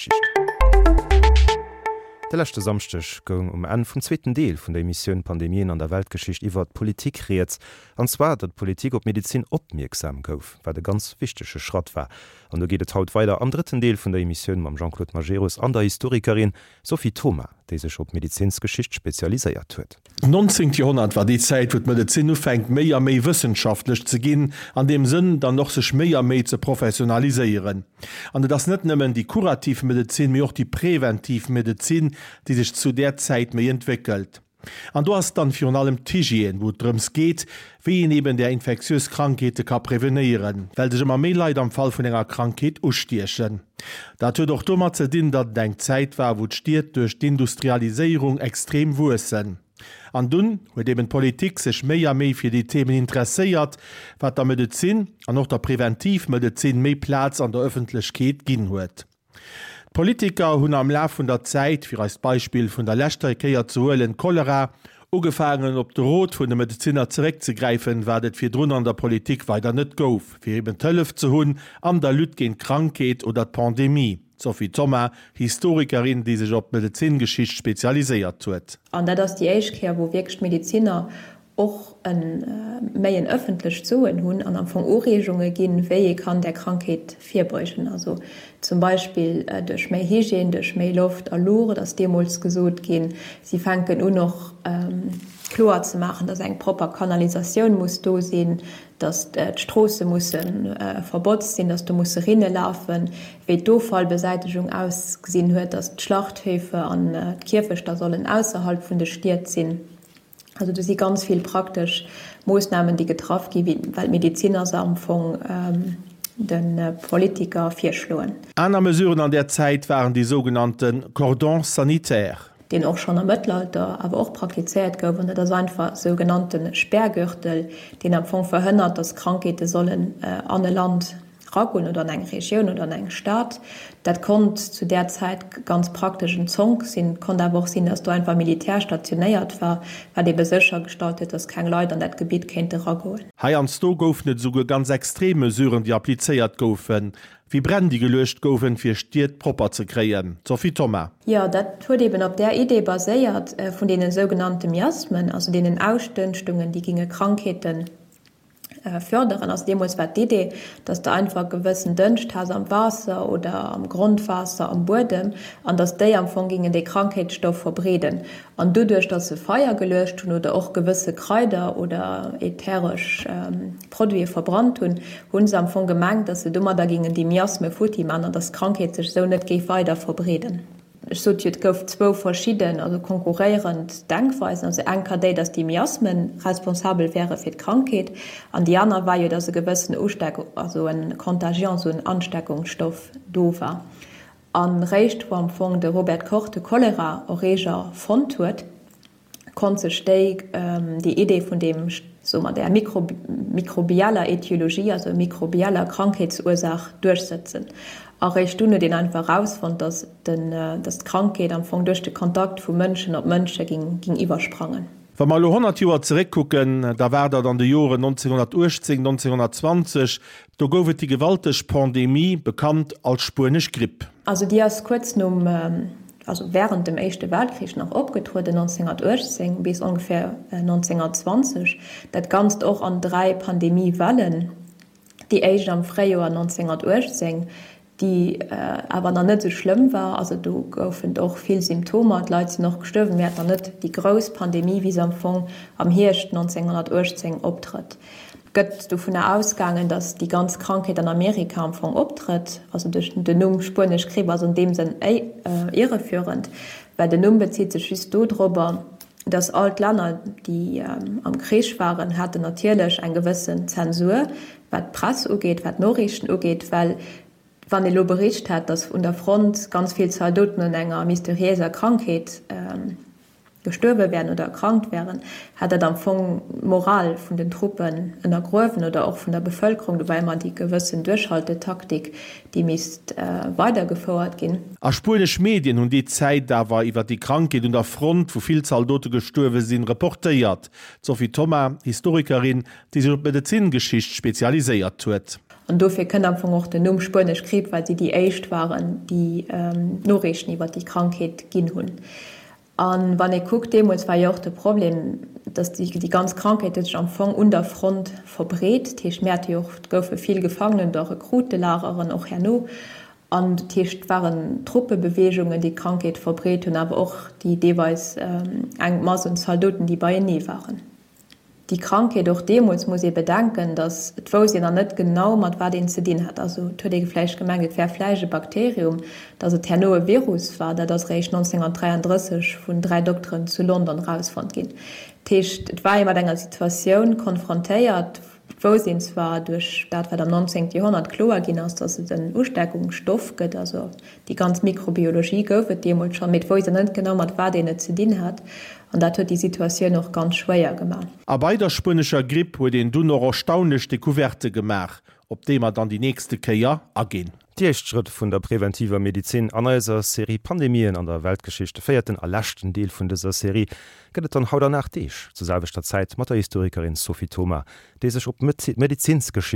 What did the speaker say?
Weltgeschicht. De leschte Samschdeg goung um Enn vum zweeten Deel vun der Emissioun Pandemien an der Weltgeschicht iwwert d'Politik rieds. An zwar, datt d'Politik op d'Medezin opmierksam gouf, wat e ganz wichtege Schratt war. An do geet et haut weider am drëtten Deel vun der Emissioun mam Jean-Claude Majerus an der Historikerin Sophie Thoma, déi sech op d'Medezinsgeschicht spezialiséiert huet. D'nonzéngt Joerhonnert war déi Zäit, wou d'Medezin ufänkt méi a méi wëssenschaftlech ze ginn, an deem Sënn dann och sech méi a méi ze professionaliséieren. An et ass net nëmmen déi kurativ Medezin, mee och déi preventiv Medezin, déi sech zu där Zäit méi entwéckelt. An do ass dann virun allem d'Hygiène, wou et drëms geet, wéi een eben där infektiös Krankheete ka prevenéieren, well sech ëmmer méi Leit am Fall vun enger Krankheet ustiechen. Dat huet och domat ze dinn, datt et eng Zäit war, wou d'Stied duerch d'Industrialiséierung extrem wuessen. An dunn huet eben d'Politik sech méi a méi fir déi Themen interesséiert, wat der Medezin an och der Preventivmedezin méi Plaz an der Ëffentlechkeet ginn huet. D'Politiker hunn am Laf vun der Zäit, fir eist Beispill vun der leschter Kéier ze huelen, Cholera, ugefaangen op de Rot vun de Medezinner zeréckzegräifen, wat et virdrun an der Politik weider net gouf, fir eben d'Hëllef ze hunn an der Lutte géint d'Krankheet oder d'Pandemie. D'Sophie Thoma, Historikerin, déi sech op d'Medezingeschicht spezialiséiert huet. An dat ass déi éischt Kéier, wou wierklech d'Medezinner och e méi en ëffentlecht Soen hunn an am Fong Ureegunge ginn, wéi ee kann där Krankheet virbeugen. Also zum Beispill duerch méi Hygiène, duerch méi Loft a Luucht ass deemools gesot ginn. Si fänken un och kloer ze maachen, dass eng propper Kanalisatioun muss do sinn, dass d'Stroosse musse verbotzt sinn, dass do musse Rinne lafen, wéi d'Offallbesäitegung ausgesinn huet, dass d'Schlachthöfe an d'Kierfechter sollen ausserhalb vun de Stied sinn. Also do si ganz vill praktesch Moossnamen, déi getraff gi well d'Medeziner se am Fong de Politiker virschloen. Aner Mesuren an där Zäit waren déi sougenannte Cordons sanitaires. Deen och schonn am Mëttelalter awer och praktizéiert gouf, an dat ass einfach sou genannte Sperrgürtel, deen am Fong verhënnert, datt Krankheete sollen an e Land Ragoen oder an eng Regioun oder an eng Stad. Dat konnt zu där Zäit ganz praktesch en Zonk sinn. Et konnt awer och sinn, datt do einfach Militär stationéiert war, wat ebe séchergestallt huet, datt keng Leit an dat Gebitt kéinte ragoen. Heiansdo goufen et esouguer ganz extrem Mesuren, déi applizéiert goufen, wéi Bränn, déi geluecht goufen, fir Stied propper ze kréien. Sophie Thoma. Jo, dat huet eben op där Idee baséiert vun deene sougenannte Miasmen, also deenen Ausdënschtungen, déi ginge Krankheeten Förderen. Also deemools war d'Idee, dass de einfach gewëssen Dënscht has am Waasser oder am Grondwaasser, am Buedem, an dass déi am Fong gingen dee Krankheetsstoff verbreeden. An doduerch, dass se Feier geluecht hunn oder och gewësse Kraider oder ätheresch Produite verbrannt hunn, hu se am Fong gemengt, dass se domadder gingen déi Miasme futti man an dass d'Krankheet sech esou net géif weider verbreeden. Ech sot jo, et gouf zwou verschidden, also konkurréierend Denkweisen. Also eng ka déi, datt déi Miasmen responsabel wäre fir d'Krankheet, an déi aner war jo, datt e gewëssen Usteck, also e Contagion, esou en Ansteckungsstoff do war. A réischt wou am Fong de Robert Koch de Cholera-Erreeger fonnt huet, konnt sech déi déi Idee vun deem, soe mer, där mikrobieller Etiologie, also mikrobieller Krankheetsursaach duerchsëtzen. A réischt dunn huet een einfach erausfonnt, datt den, datt d'Krankheet am Fong duerch de Kontakt vu Mënschen op Mënsche ging, ging iwwersprangen. Wa mer elo 100 Joer zeréckkucken, da war dat an de Joren 1918, 1920, do gouf et déi gewalteg Pandemie, bekannt als spuenesch Gripp. Also déi ass kuerz nom, also während dem Éischte Weltkrich nach opgetrueden, 1918 bis ongeféier 1920, dat Ganzt och an 3 Pandemiewellen, déi éischt am Fréijoer 1918, déi awer nach net esou schlëmm war, also do goufen et och vill Symptomer, d'Leit sinn och gestuerwen, mee et war net déi grouss Pandemie, wéi se am Fong am Hierscht 1918 optrëtt. Gëtt dovunner ausgaangen, datt déi ganz Krankheet an Amerika am Fong optrëtt. Also duerch den Numm Spuenesch Gripp ass an deem Sënn irreführend, well den Numm bezitt sech just dodrobber, datt all d'Länner, déi am Krich waren, haten natierlech eng gewëssen Zensur, wat d'Press ugeet, wat d'Noriichten ugeet, well wann ee lo bericht hätt, datt un der Front ganz vill Zaldoten un enger mysteriéiser Krankheet gestuerwe wären oder erkrankt wären, hätt dat am Fong d'Moral vun den Truppen ënnergruewen oder och vun der Bevëlkerung. Do war ëmmer déi gewëssen Duerchhaltetaktik, déi misst weidergefouert ginn. A spuenesch Medien hunn déi Zäit awer iwwer déi Krankheet un der Front, wou vill Zaldote gestuerwe sinn, reportéiert. D'Sophie Thoma, Historikerin, déi sech op d'Medezingeschicht spezialiséiert huet. An dofir kënnt am Fong och den Numm Spuenesch Gripp, well si déi éischt waren, déi Noriichten iwwer déi Krankheet ginn hunn. A wann ee kuckt, deemools war jo och de Problem, datt déi ganz Krankheet huet sech am Fong un der Front verbreet. Dat heescht, mir hate jo och, et goufe vill Gefangenen oder Rekrutelageren och herno. An dat heescht, et waren Truppebeweegungen, déi d'Krankheet verbreet hunn, awer och déi deelweis eng Mass un Zaldoten, déi beienee waren. Déi Krankheet, och deemools muss ee bedenken, datt et wousst een nach net genau, mat wat een ze dinn hat. Also et huet ee vläicht gemengt, et wär vläicht e Bakterium. Datt et herno e Virus war, dat ass eréischt 1933 vun 3 Dokteren zu London erausfonnt ginn. Dat heescht, et war ee mat enger Situatioun konfrontéiert, Et wousst een zwar duerch dat, wat am 19. Joerhonnert kloer ginn ass, datt et en Usteckungsstoff gëtt, also déi ganz Mikrobiologie gouf et deemools schonn, mee et wousst een net genau, mat wat een et ze dinn hat, an dat huet déi Situatioun och ganz schwéier gemaach. A bei der spuenescher Gripp huet een dunn och erstaunlech Decouverte gemaach, op déi mer dann déi nächste Kéier aginn. Déi éischt Schrëtt vun der preventiver Medizin an eiser Serie Pandemien an der Weltgeschicht, de véierten a leschten Deel vun dëser Serie, gëtt et dann haut an 8 Deeg zur selwechter Zäit mat der Historikerin Sophie Thoma, déi sech op d'Medezinsgeschicht.